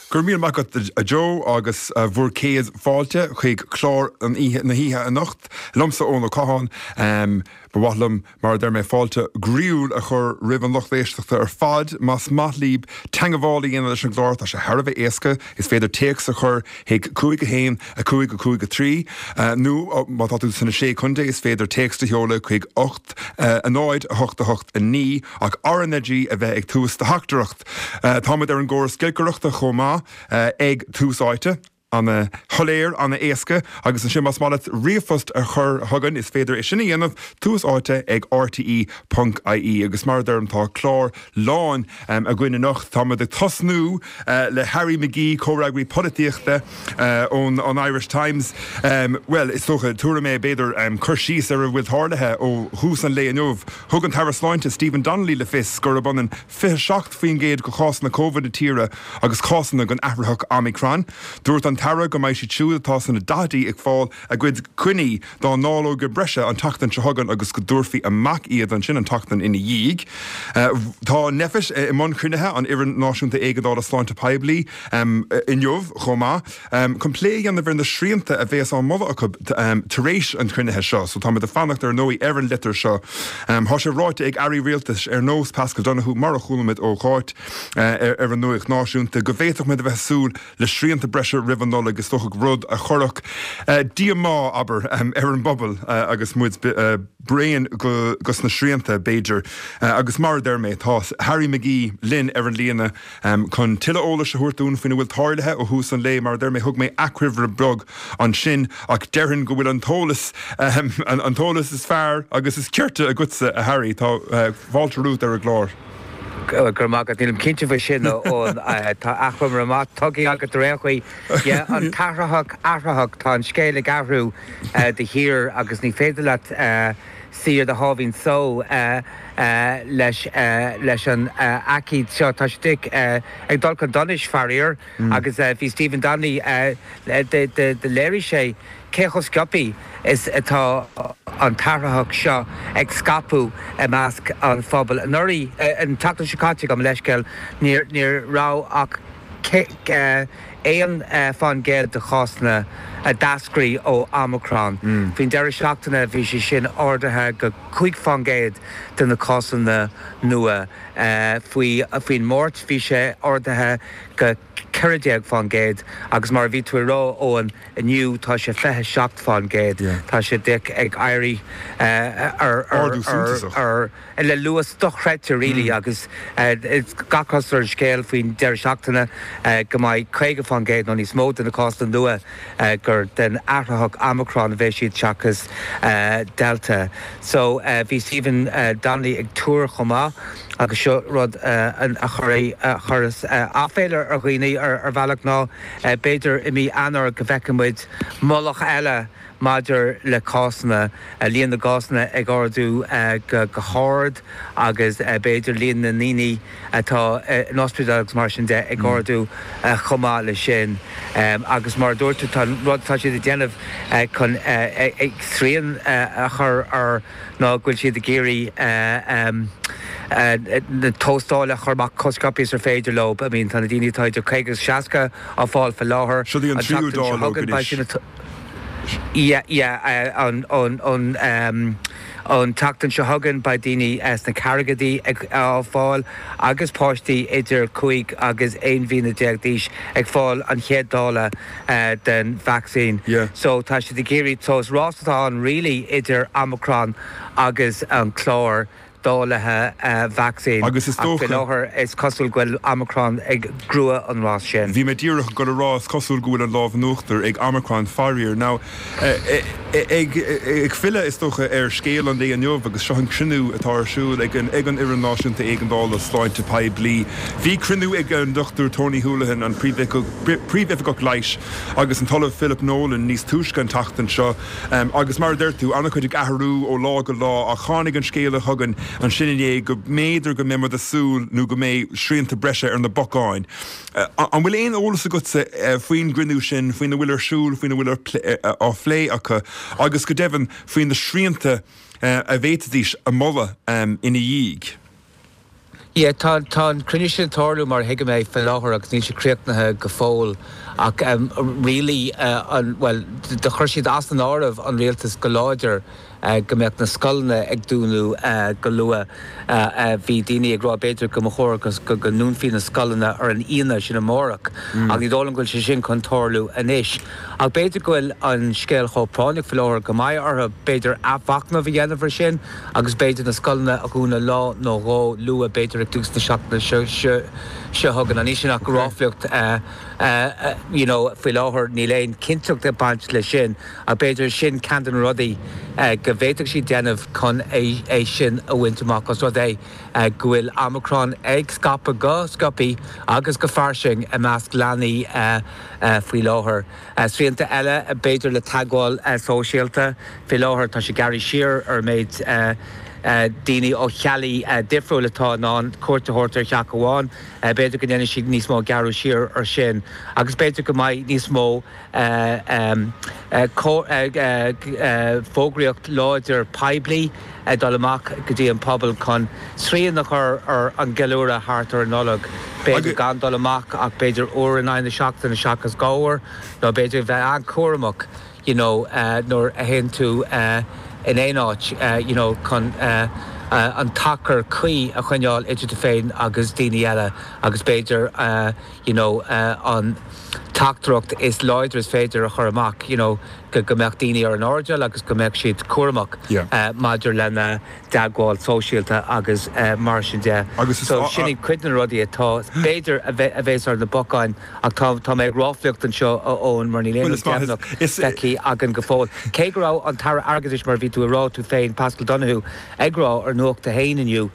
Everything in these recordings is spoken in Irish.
Go raibh míle maith agat a Joe agus bhur gcéad fáilte chuig clár an oíche, na hoíche anocht liomsa Eoin Ó Catháin. Ba mhaith liom, mar a deir mé, fáilte groíúil a chur roimh an lucht éisteachta ar fad. Más maith libh teangabháil a dhéanamh leis an gclár, tá sé thar a bheith éasca. Is féidir téacs a chur chuig 5 1 5 5 3 nó má tá tú sna Sé Contae is féidir téacs a sheoladh chuig 8 0 8 8 9 ach RnaG a bheith ag tús do theachtaireacht. Táimid ar an gcóras giolcaireachta chomh maith ag Tús Áite. Ana shoiléir, ana éasca. Agus ansin más maith leat ríomhphost a chur chugainn is féidir é sin a dhéanamh, Tús Áite ag rte ponc ie. Agus mar a deirim tá clár lán againn anocht. Táimid ag tosnú le Harry McGee, comhfhreagraí polaitíochta ón an Irish Times. Bhuel, is dócha, tabharfaidh mé b'fhéidir cur síos ar a bhfuil tarlaithe ó thús an lae inniu. Thug an tAire Sláinte Stephen Donnelly le fios gurb ionann 27% de chásanna Covid na tíre agus cásanna den athraitheach Omicron. Dúirt an tAire go mbeidh siad siúd atá sna daichidí ag fáil a gcuid coinní dá ndáileoga breise an tseachtain seo chugainn agus go dtabharfaí amach iad ansin an tseachtain ina dhiaidh. Tá Nphet i mbun cruinnithe, an Fhoireann Náisiúnta Éigeandála Sláinte Poiblí, inniu chomh maith. Chun plé a dhéanamh ar na srianta a bhéas á moladh acu tar éis an chruinnithe seo. So táimid ag fanacht ar ndóigh ar an litir seo. Tá sé ráite ag airí rialtais ar nós Paschal Donohoe, mar a chuala muid ó Cháit ar an Nuacht Náisiúnta, go bhféadfadh muid a bheith ag súil le srianta breise roimh an Nollaig, is dócha rud a chuirfeadh díomá, abair, ar an bpobal agus muid bréan dos na srianta, b'fhéidir. Agus mar a deir mé, tá Harry McGee linn ar an líne. Chun tuilleadh eolais a thabhairt dúinn faoina bhfuil tarlaithe ó thús an lae, mar a deir mé, thug mé achoimre beag ansin, ach déarfainn go bhfuil an t-eolas, an t-eolas is fearr agus is cirte agatsa, a Harry. Tá fáilte romhat ar an gclár. Go raibh maith agat. Nílim cinnte faoi sin, a Eoin. Tá achoimre maith tugtha agat ar aon chaoi. Yeah, an t-athraitheach, athraitheach, tá an scéal ag athrú de shíor agus ní féidir leat suí ar do sháimhín só leis leis an aicíd seo. Tá sé ag dul chun donais, faraor, agus bhí Stephen Donnelly, do léirigh sé cé chomh sciobtha is atá an t-athraitheach seo ag scaipeadh i measc an phobail. Anuraidh, an tseachtain seo caite, gabh mo leithscéal, ní raibh ach 1% de chásanna a d'eascraigh ó Omicron. Faoin deireadh seachtaine bhí sé sin ardaithe go 5% de na cásanna nua. Faoin Máirt bhí sé ardaithe go 14% agus mar a bhí tú ag rá, Eoin, inniu tá sé 27%. Tá sé ag éirí ar Ardú suntasach. le luas dochreidte really agus gach cosúlacht ar an scéal faoin deireadh seachtaine go mbeidh 50% nó níos mó de na cásanna nua gur den athraitheach Omicron a bheidh siad seachas Delta. So bhí Stephen Donnelly ag tuar chomh maith agus seo rud a chuireas aiféala ar dhaoine ar bhealach ná b'fhéidir i mí Eanáir go bhfeicfidh muid mullach eile Maidir le cásanna, líon na gcásanna ag ardú go hard agus b'fhéidir líon na ndaoine atá in ospidéal agus mar sin de ag ardú chomh maith leis sin. Agus mar a dúirt tú, tá an rud atá siad ag déanamh chun srian a chur air ná go bhfuil siad ag iarraidh na tástáil a chur amach chomh sciobtha is ar féidir leo. I mean tá na daoine atá idir 50 agus 60 á fáil faoi láthair. Seo í an tríú dáileog anois. Yeah, yeah, an, an, an, an tseachtain seo chugainn beidh daoine sna ceathrachaidí ag, á fáil agus páistí idir 5 agus 11 mhí d'aois ag fáil an chéad dáileog den vacsaín. Yeah. So tá siad ag iarraidh, so is rás atá ann really idir Omicron agus an clár. dáilithe vacsaín Agus is ach faoi dócha. láthair is cosúil go bhfuil Omicron ag gnóthú an rás sin. Bhí mé díreach ag dul a rá, is cosúil go bhfuil an lámh in uachtar ag Omicron faraor. Now, ag filleadh is dócha ar scéal an lae inniu agus seo an cruinniú atá ar siúl ag an ag an Fhoireann Náisiúnta Éigeandála Sláinte Poiblí. Bhí cruinniú ag an Dr Tony Holohan, an Príomhoifigeach Leighis agus an tOllamh Philip Nolan níos túisce an tseachtain seo. Agus mar a deir tú, an-chuid ag athrú ó lá go lá ach tháinig an scéala chugainn ansin inné go mb'fhéidir go mbeidh muid ag súil nó go mbeidh srianta breise ar na bacáin. An bhfuil aon eolas agatsa faoin gcruinniú sin, faoina bhfuil ar siúl, faoina bhfuil á phlé acu agus go deimhin faoi na srianta a bhféadfaidís a mholadh ina dhiaidh? Yeah, tá, tá an cruinniú sin ag tarlú mar a thuigim é faoi láthair agus níl sé críochnaithe go fóill ach really an, bhuel, do chuir siad as an áireamh an rialtas go láidir go mbeadh na scoileanna ag dúnadh go luath. Bhí daoine ag rá b'fhéidir go mba chóir go go ndúnfaí na scoileanna ar an Aoine, sin amárach, ach ní dóigh liom go bhfuil sé sin chun tarlú anois. Ach b'fhéidir go bhfuil an scéal chomh práinneach faoi láthair go mbeidh orthu b'fhéidir athmhachnamh a dhéanamh ar sin agus b'fhéidir na scoileanna a dhúnadh lá nó dhó luath, b'fhéidir ag tús na seachtaine seo chugainn. Níl sin ach ráflaíocht you know faoi láthair, níl aon chinnteacht ag baint leis sin ach b'fhéidir sin ceann de na rudaí go bhféadfadh siad déanamh chun é sin a bhaint amach os rud é go bhfuil Omicron ag scaipeadh go sciobtha agus go fairsing i measc leanaí faoi láthair. Srianta eile, b'fhéidir, le teagmháil sóisialta. Faoi láthair tá sé gearraithe siar ar an méid daoine ó theaghlaigh difriúil atá in ann cuairt a thabhairt ar theach amháin. B'fhéidir go ndéanfaidh siad níos mó gearradh siar ar sin agus b'fhéidir go mbeidh níos mó fógraíocht láidir poiblí ag dul amach go dtí an pobal chun srian a chur ar an gceiliúradh thart ar an Nollaig. B'fhéidir gan dul amach ach b'fhéidir uair in aghaidh na seachtaine seachas dhá uair nó b'fhéidir bheith an-chúramach you know nuair a théann tú in aon áit you know chun an t-achar cuí a choinneáil idir tú féin agus daoine eile agus b'fhéidir you know an teachtaireacht is láidre is féidir a chur amach you know go go mbeadh daoine ar an airdeall agus go mbeadh siad cúramach maidir lena dteagmháil sóisialta agus mar sin de. So sin iad cuid de na rudaí atá b'fhéidir a bheith a bhéas ar na bacáin ach tá tá mé ag ráflaíocht anseo a Eoin mar níl aon rud deimhneach feicthe againn go fóill. Cé go raibh an tAire Airgeadais mar a bhí tú a rá tú féin Paschal Donohoe ag rá ar Nuacht a hAon inniu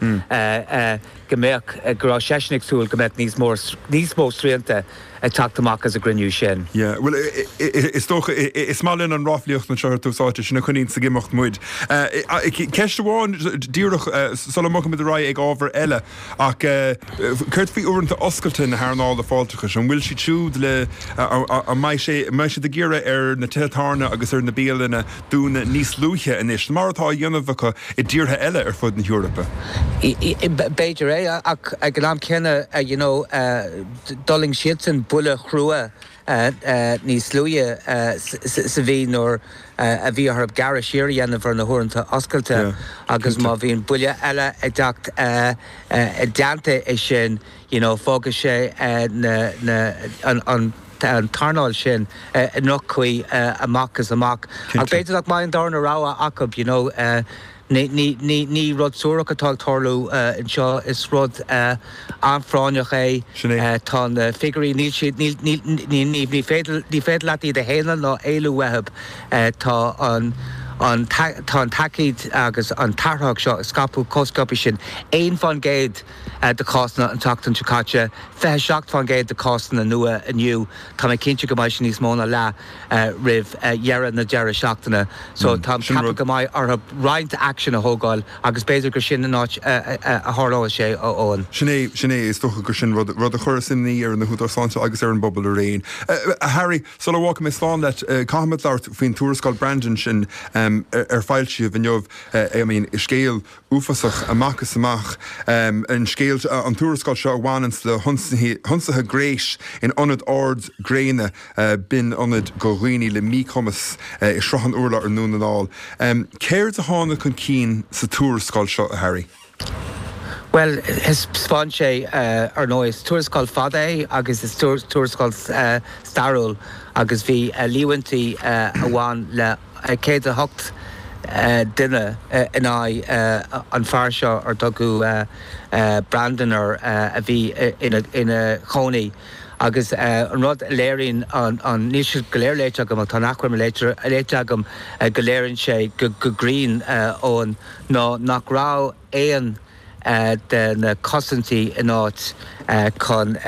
go mbeadh, go raibh seisean ag súil go mbeadh níos mó, níos mó srianta ag teacht amach as an gcruinniú sin. Yeah, bhuel, is dócha, is maith linn an ráflaíocht anseo ar Tús Áite, sin a choinníonns ag imeacht muid. Ceist amháin díreach sula mbogfaimid ar aghaidh ag ábhar eile, ach céard faoi uaireanta oscailte na hearnála fáilteachais? An bhfuil siad siúd le, an mbeidh sé, an mbeidh siad ag iarraidh ar na tithe tábhairne agus ar na bialanna dúnadh níos luaithe anois, mar atá á dhéanamh acu i dtíortha eile ar fud na hEorpa. B'fhéidir é, ach ag an am céanna, you know, d'fhulaing siadsan buille chrua níos luaithe sa mhí nuair a bhí orthu gearradh siar a dhéanamh ar na huaireanta oscailte agus má bhíonn buille eile ag teacht i dteannta é sin, you know, fágfaidh sé na, na, an, an, an t-earnáil sin i ndroch-chaoi amach is amach. Ach b'fhéidir nach mbeidh an darna rogha acu, you know. Ní, ní, ní, ní rud suarach atá ag tarlú anseo, is rud an-phráinneach é. Sin é. Tá na figiúirí, níl siad, níl, níl, ní, ní, ní féidir, ní féidir leat iad a shéanadh ná éalú uathu. Tá an, an, tá an t-aicíd agus an t-athraitheach seo ag scaipeadh chomh sciobtha sin. 1%. de chásanna an tseachtain seo caite, 27% de chásanna nua inniu. Tá mé cinnte go mbeidh sé níos mó ná leath roimh dheireadh na deireadh seachtaine. So táim ag ceapadh go mbeidh orthu roinnt aicsean a thógáil agus b'fhéidir gur sin an áit a tharlóidh sé, a Eoin. Sin é, sin é. Is dócha gur sin rud, rud a chuirfeas imní ar na húdaráis sláinte agus ar an bpobal araon. A Harry, sula bhfágfaidh mé slán leat, caithfimid labhairt faoin tuarascáil Brandon sin ar foilsíodh inniu. I mean, scéal uafásach amach is amach an scéal, an tuarascáil seo a bhaineanns le hionsaithe gnéis in ionad ard gréine, b'in ionad do dhaoine le míchumas i Srath an Urláir i nDún na nGall. Céard a tháinig chun cinn sa tuarascáil seo, a Harry? Bhuel, thaispeáin sé, ar ndóigh, is tuarascáil fada é agus is tuarascáil stairiúil agus bhí líomhaintí a bhain le 108 duine in aghaidh an fear seo ar tugadh Brandon air a bhí ina chónaí agus an rud a léiríonn an, níl siad go léir léite agam ach tá an achoimre léite agam, go léiríonn sé go cruinn, Eoin, ná nach raibh aon de na cosaintí in áit chun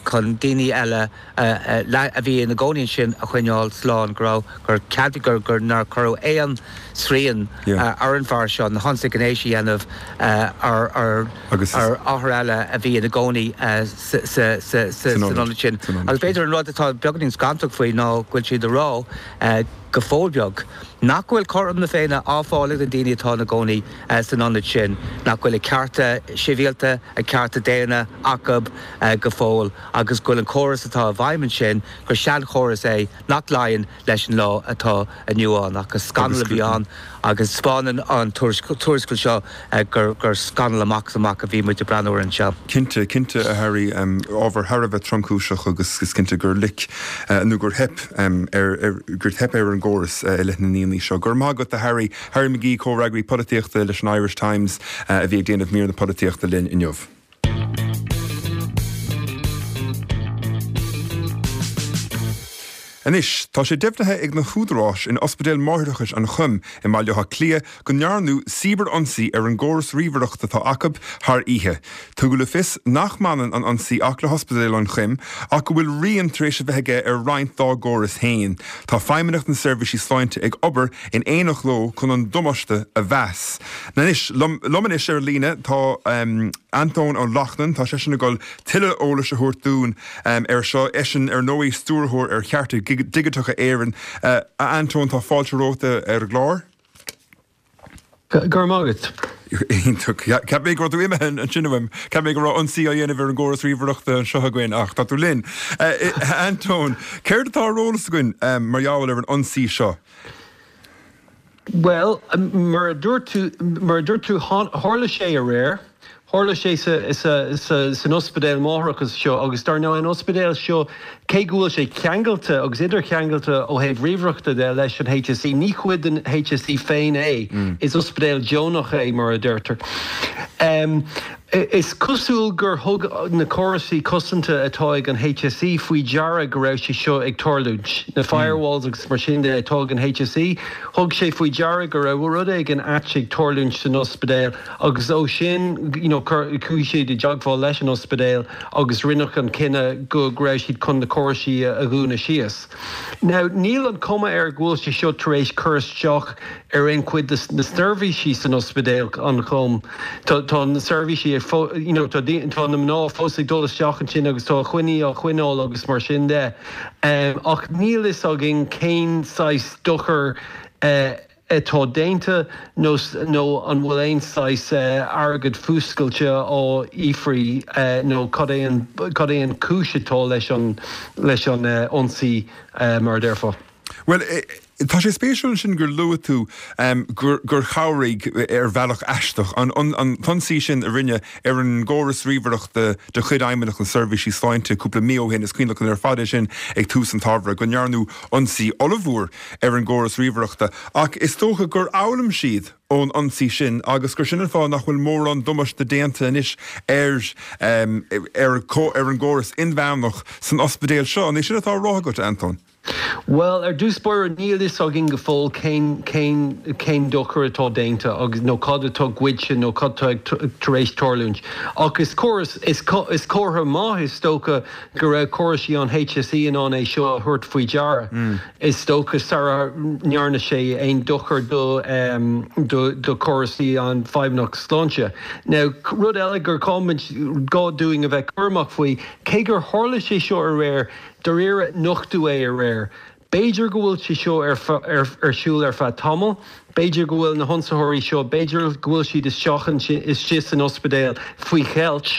chun daoine eile a bhí ina gcónaí ansin a choinneáil slán, go raibh, gur cead, gur, gur, nár cuireadh aon srian ar an bhfear seo na hionsaithe gnéis a dhéanamh ar ar ar othair eile a bhí ina gcónaí sa sa sa san ionad sin. Agus b'fhéidir an rud atá beagáinín scantach faoi ná go bhfuil siad ag rá go fóill beag. nach bhfuil cothrom na Féinne á fáil ag na daoine atá ina gcónaí san ionad sin, nach bhfuil a cearta sibhialta, a cearta daonna acu go fóill agus go bhfuil an córas atá i bhfeidhm ansin, gur seanchóras é nach luíonn leis an lá atá inniu ann. Ach is scannal a bhí ann agus 'spáineann an tuarascáil seo gur scannal amach is amach a bhí muid ag breathnú air anseo. Cinnte, cinnte, a Harry. Ábhar thar a bheith tromchúiseach agus is cinnte gur loic nó gur theip ar, gur theip ar an gcóras i leith na ndaoine seo. Go raibh maith agat, a Harry. Harry McGee, comhfhreagraí polaitíochta leis an Irish Times, a bhí ag déanamh mír na polaitíochta linn inniu. Anois, tá sé deimhnithe ag na húdaráis in Ospidéal Máithreachais an Choim i mBaile Átha Cliath go ndearnadh cibear-ionsaí ar an gcóras ríomhaireachta atá acu thar oíche. Tugadh le fios nach mbaineann an ionsaí ach le hOspidéal an Choim ach go bhfuil rian tar éis a bheith aige ar roinnt dá gcóras féin. Tá Feidhmeannacht na Seirbhísí Sláinte ag obair in éineacht leo chun an damáiste a mheas. Anois, liom anois ar líne tá Antóin Ó Lachtnáin, tá seisean ag dul tuilleadh eolais a thabhairt dúinn air seo, eisean ar ndóigh Stiúrthóir ar Chearta Digiteacha Éireann. A Antóin, tá fáilte romhat ar an gclár. Go raibh maith agat. Iontach. Cheap mé go raibh tú imithe ansin uaim. Cheap mé go raibh ionsaí á dhéanamh ar an gcóras ríomhaireachta anseo againn ach tá tú linn. A Antóin, céard atá ar eolas againn mar gheall ar an ionsaí seo? Bhuel, mar a dúirt tú, mar a dúirt tú, tharla sé aréir. Tharla sé san ospidéal máithreachais seo agus dar ndóigh an ospidéal seo, cé go bhfuil sé ceangailte agus idircheangailte ó thaobh ríomhaireachta de leis an HSE, ní cuid den HSE féin é. Is ospidéal deonach é, mar a deirtear. Is cosúil gur thug na córasaí cosanta atá ag an HSE faoi deara go raibh sé seo ag tarlúint. Na firewalls agus mar sin de atá ag an HSE, thug sé faoi deara go raibh rud éigin ait ag tarlúint san ospidéal agus ó sin you know chuaigh siad i dteagmháil leis an ospidéal agus rinneadh an cinneadh go raibh siad chun na córaisí a dhúnadh síos. Now níl an cuma air go bhfuil sé seo tar éis cur isteach ar aon chuid de na seirbhísí san ospidéal an Chom. Tá tá na seirbhísí ag you know tá tá na mná fós ag dul isteach ansin agus tá coinní á choinneáil agus mar sin de. Ach níl fhios againn cén saghas dochar atá déanta nó nó an bhfuil aon saghas airgead fuascailte á fhiafraí nó cad é an cad é an cúis atá leis an leis an ionsaí mar a déarfá. Bhuel, tá sé spéisiúil ansin gur luaigh tú gur chabhraigh, ar bhealach aisteach, an t-ionsaí sin a rinneadh ar an gcóras ríomhaireachta de chuid Fheidhmeannacht na Seirbhísí Sláinte cúpla mí ó shin, is cuimhin liom ar fad é sin ag tús an tsamhraidh, go ndearnadh ionsaí ollmhór ar an gcóras ríomhaireachta. Ach is dócha gur fhoghlaim siad ón ionsaí sin agus gur sin an fáth nach bhfuil mórán damáiste déanta anois ar ar an gcóras inmheánach san ospidéal seo. An é sin atá á rá agat, a Antóin? Bhuel, ar dtús báire, níl fhios againn go fóill cén, cén, cén dochar atá déanta agus, nó cad atá goidte nó cad atá tar éis tarlúint. Ach is córas, is, is comhartha maith is dócha go raibh córaisí an HSE in ann é seo a thabhairt faoi deara, is dócha, sara ndearna sé aon dochar do, do, do chóraisí an Feidhmeannacht Sláinte. Now, rud eile gur gá, gá dúinn a bheith cúramach faoi, cé gur tharla sé seo aréir, Dáiríre, nochtadh é aréir. B'fhéidir go bhfuil sé seo ar ar siúl ar feadh tamaill. B'fhéidir go bhfuil na hionsaitheoirí seo, b'fhéidir go bhfuil siad isteach ansin, istigh san ospidéal faoi cheilt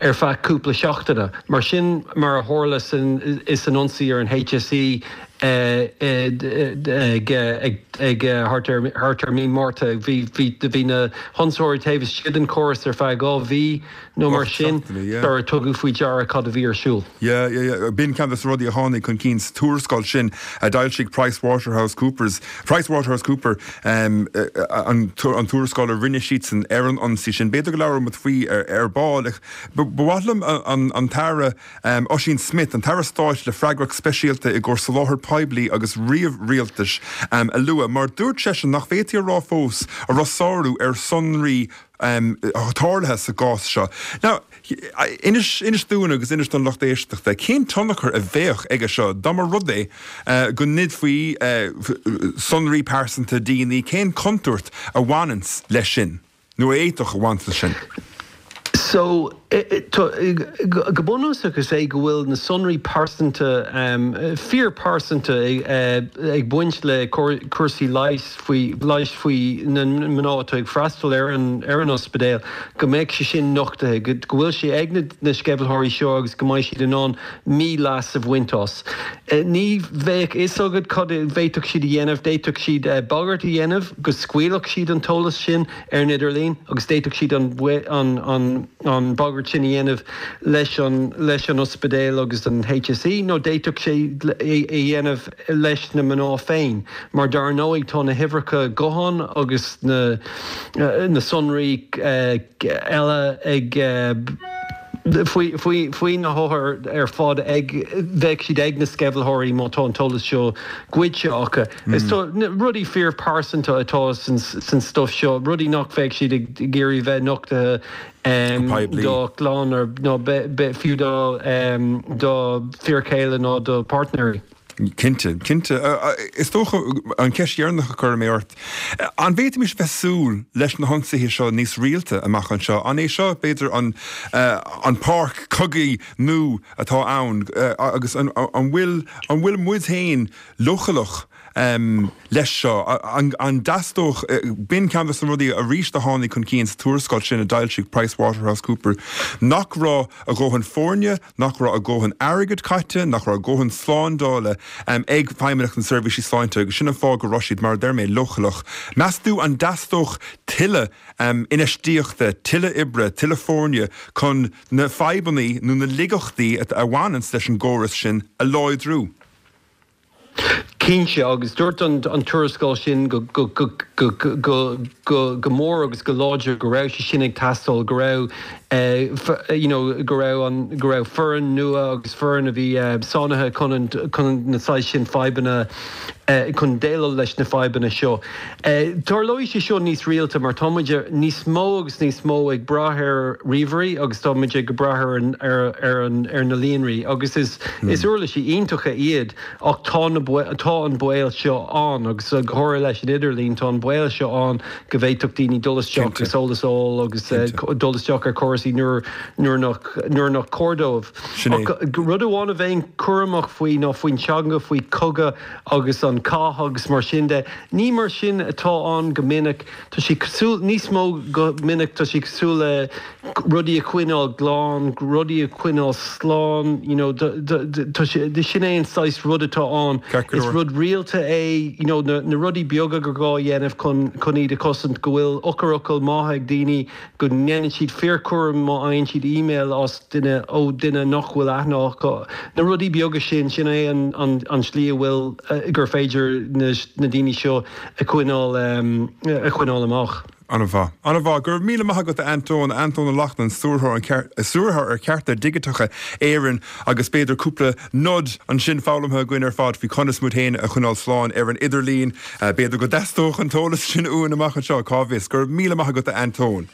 ar feadh cúpla seachtaine. Mar sin mar a tharla san is san ionsaí ar an HSE ag ag thart ar thart ar mí Márta. Bhí bhí bhí na hionsaitheoirí taobh istigh den chóras ar feadh 2 mhí. nó mar sin, sara tugadh faoi deara cad a bhí ar siúl. Yeah, yeah, yeah. B'in ceann de na rudaí a tháinig chun cinn sa tuarascáil sin a d'fhoilsigh Price Waterhouse Coopers, Price Waterhouse Cooper, an tuarascáil a rinne siadsan ar an ionsaí sin. B'fhéidir go labhróidh muid faoi ar ball. Ach ba mhaith liom an tAire Ossian Smyth, an tAire Stáit le freagracht speisialta i gcomhair soláthar poiblí agus ríomh-rialtais, a lua, mar dúirt seisean nach bhféadfaí a rá fós a raibh sárú ar shonraí tarlaithe sa gcás seo. Now, inis, inis dúinn agus inis don lucht éisteachta, cén tionchar a bheadh aige seo dá mba rud é go ngoidfí sonraí pearsanta daoine, cén chontúirt a bhaineanns leis sin, nó a fhéadfadh a bhaint leis sin? So, go bunúsach is é go bhfuil na sonraí pearsanta, fíorphearsanta ag baint le cúrsaí leighis faoi, leighis faoi na mná atá ag freastal ar an ar an ospidéal, go mbeadh sé sin nochtaithe, go bhfuil sé ag na sceimhlitheoirí seo agus go mbeidh siad in ann mí-leas a bhaint as. Ní bheadh fhios agat cad a bhféadfadh siad a dhéanamh, d'fhéadfadh siad bagairt a dhéanamh go scaoilfeadh siad an t-eolas sin, ar an idirlíon agus d'fhéadfadh siad an an bagairt sin a dhéanamh leis an leis an ospidéal agus an HSE nó d'fhéadfadh sé é a dhéanamh leis na mná féin mar dar ndóigh tá na huimhreacha gutháin agus na na sonraí eile ag faoi na hothair ar fad ag, bheadh siad ag na sceimhlitheoirí má tá an t-eolas seo goidte acu. Is rudaí fíorphearsanta atá san stuif seo, rudaí nach bheadh siad ag iarraidh bheith nochtaithe dá gclann nó fiú dá bhfir chéile nó dá bpáirtnéirí. Cinnte, cinnte. Is dócha, an cheist dheireanach a chuirfidh mé ort, an bhféadfaimis bheith súil leis na hionsaithe seo níos rialta amach anseo? An é seo, b'fhéidir, an an páirc chogaidh nua atá ann agus an bhfuil an bhfuil muid féin leochaileach leis seo? An dteastódh, b'in ceann de na rudaí arís a tháinig chun cinn sa tuarascáil sin a d'fhoilsigh PricewaterhouseCoopers, nach raibh a dhóthain foirne, nach raibh a dhóthain airgid caite, nach raibh a dhóthain slándála ag Feidhmeannacht na Seirbhísí Sláinte agus sin an fáth go raibh siad, mar a deir mé, leochaileach. Meas tú an dteastódh tuilleadh infheistíochta, tuilleadh oibre, tuilleadh foirne chun na fadhbanna nó na laigeachtaí a bhaineanns leis an gcóras sin a láidriú? Cinnte, agus dúirt an tuarascáil sin go mór agus go láidir go raibh sé sin ag teastáil, go raibh you know go raibh an go raibh foireann nua agus foireann a bhí sáinnithe chun chun na saghas sin fadhbanna chun déileáil leis na fadhbanna seo. Tarlóidh sé seo níos rialta mar tá muid níos mó agus níos mó ag brath ar ríomhairí agus tá muid ag brath ar an ar ar an ar na líonraí agus is is uirlisí iontacha iad ach tá na tá an baol seo ann agus go háirithe leis an idirlíon tá an baol seo ann go bhféadfadh daoine dul isteach agus eolas a fháil agus dul isteach ar chúrsaí nuair nuair nach nuair nach cóir dóibh. Ach rud amháin a bheinn cúramach faoi ná faoin teanga, faoi cogadh agus an cath agus mar sin de. Ní mar sin atá ann go minic. Tá sé cosúil, níos mó go minic, tá sé cosúil le rudaí a choinneáil glan, rudaí a choinneáil slán, you know, tá sé, sin é an saghas rud atá ann. Is rud rialta é, you know, na rudaí beaga gur gá a dhéanamh chun chun iad a chosaint, go bhfuil eochairfhocail maithe ag daoine, go ndéanann siad fíorchúram má fhaigheann siad email as duine, ó duine nach bhfuil aithne acu. Na rudaí beaga sin, sin é an an slí a bhfuil, gur féidir na na daoine seo a choinneáil, a choinneáil amach. An-mhaith. An-mhaith. Go raibh míle maith agat a Antóin, Antóin Ó Lachtnáin, Stiúrthóir Stiúrthóir ar Chearta Digiteacha Éireann agus b'fhéidir cúpla nod ansin foghlamtha againn ar fad faoi conas muid féin a choinneáil slán ar an idirlíon. B'fhéidir go dteastódh an t-eolas sin uainn amach anseo, cá bhfios. Go raibh míle maith agat a Antóin.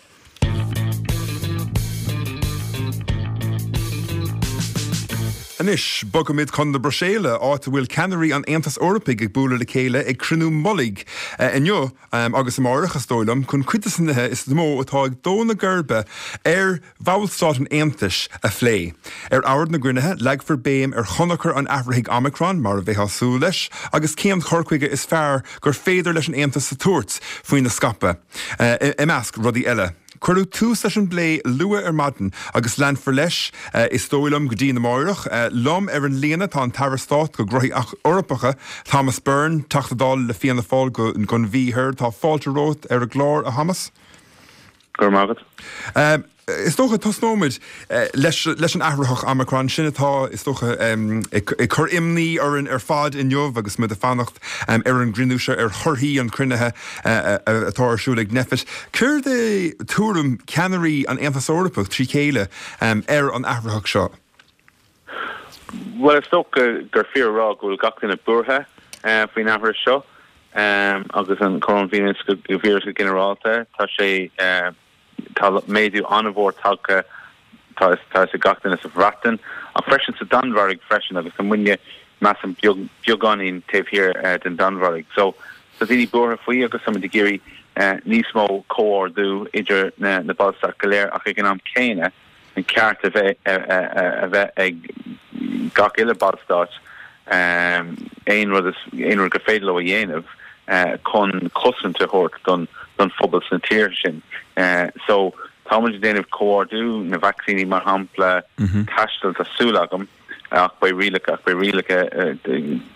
Anois, bogaimid chun na Bruiséile, áit a bhfuil ceannairí an Aontais Eorpaigh ag bualadh le chéile ag cruinniú mullaigh inniu agus amárach, is dóigh liom, chun cuid de na nithe is mó atá ag dó na geirbe ar Bhallstáit an Aontais a phlé. Ar ord na gcruinnithe, leagfar béim ar thionchar an athraithigh Omicron, mar a bheifeá ag súil leis, agus cén cur chuige is fearr gur féidir leis an Aontas a tabhairt faoina scaipeadh, i measc rudaí eile. Cuireadh tús leis an bplé luath ar maidin agus leanfar leis, is dóigh liom, go dtí amárach. Liom ar an líne tá an tAire Stáit do Ghnóthaí Eorpacha, Thomas Byrne, Teachta Dála le Fianna Fáil don Mhí Thoir. Tá fáilte romhat ar an gclár, a Thomas. Go raibh maith agat. Is dócha, tosnóimid leis an athraitheach Omicron, sin atá, is dócha, ag cur imní orainn ar fad inniu agus muid ag fanacht ar an gcruinniú seo, ar thorthaí an chruinnithe atá ar siúl ag Nphet. Céard é tuairim ceannairí an Aontais Eorpaigh trí chéile ar an athraitheach seo? Bhuel, is dócha gur fíor a rá go bhfuil gach duine buartha faoin athraitheach seo agus an coróinvíreas go ginearálta. Tá sé, tá méadú an-mhór tagtha, tá a fhios ag gach duine sa Bhreatain ach freisin sa Danmhairg freisin agus tá muidne, measaim, beagáinín taobh thiar den Danmhairg. So, tá daoine buartha faoi agus tá muid ag iarraidh. níos mó comhordú idir na Ballstáit go léir ach ag an am céanna an ceart a bheith a bheith ag gach uile Ballstát aon rud aon rud gur féidir leo a dhéanamh chun cosaint a thabhairt don don phobal sna tíortha sin. So tá muid ag déanamh comhordú na vacsaíní mar shampla, taisteal tá súil agam. Ach beidh rialacha, ach beidh rialacha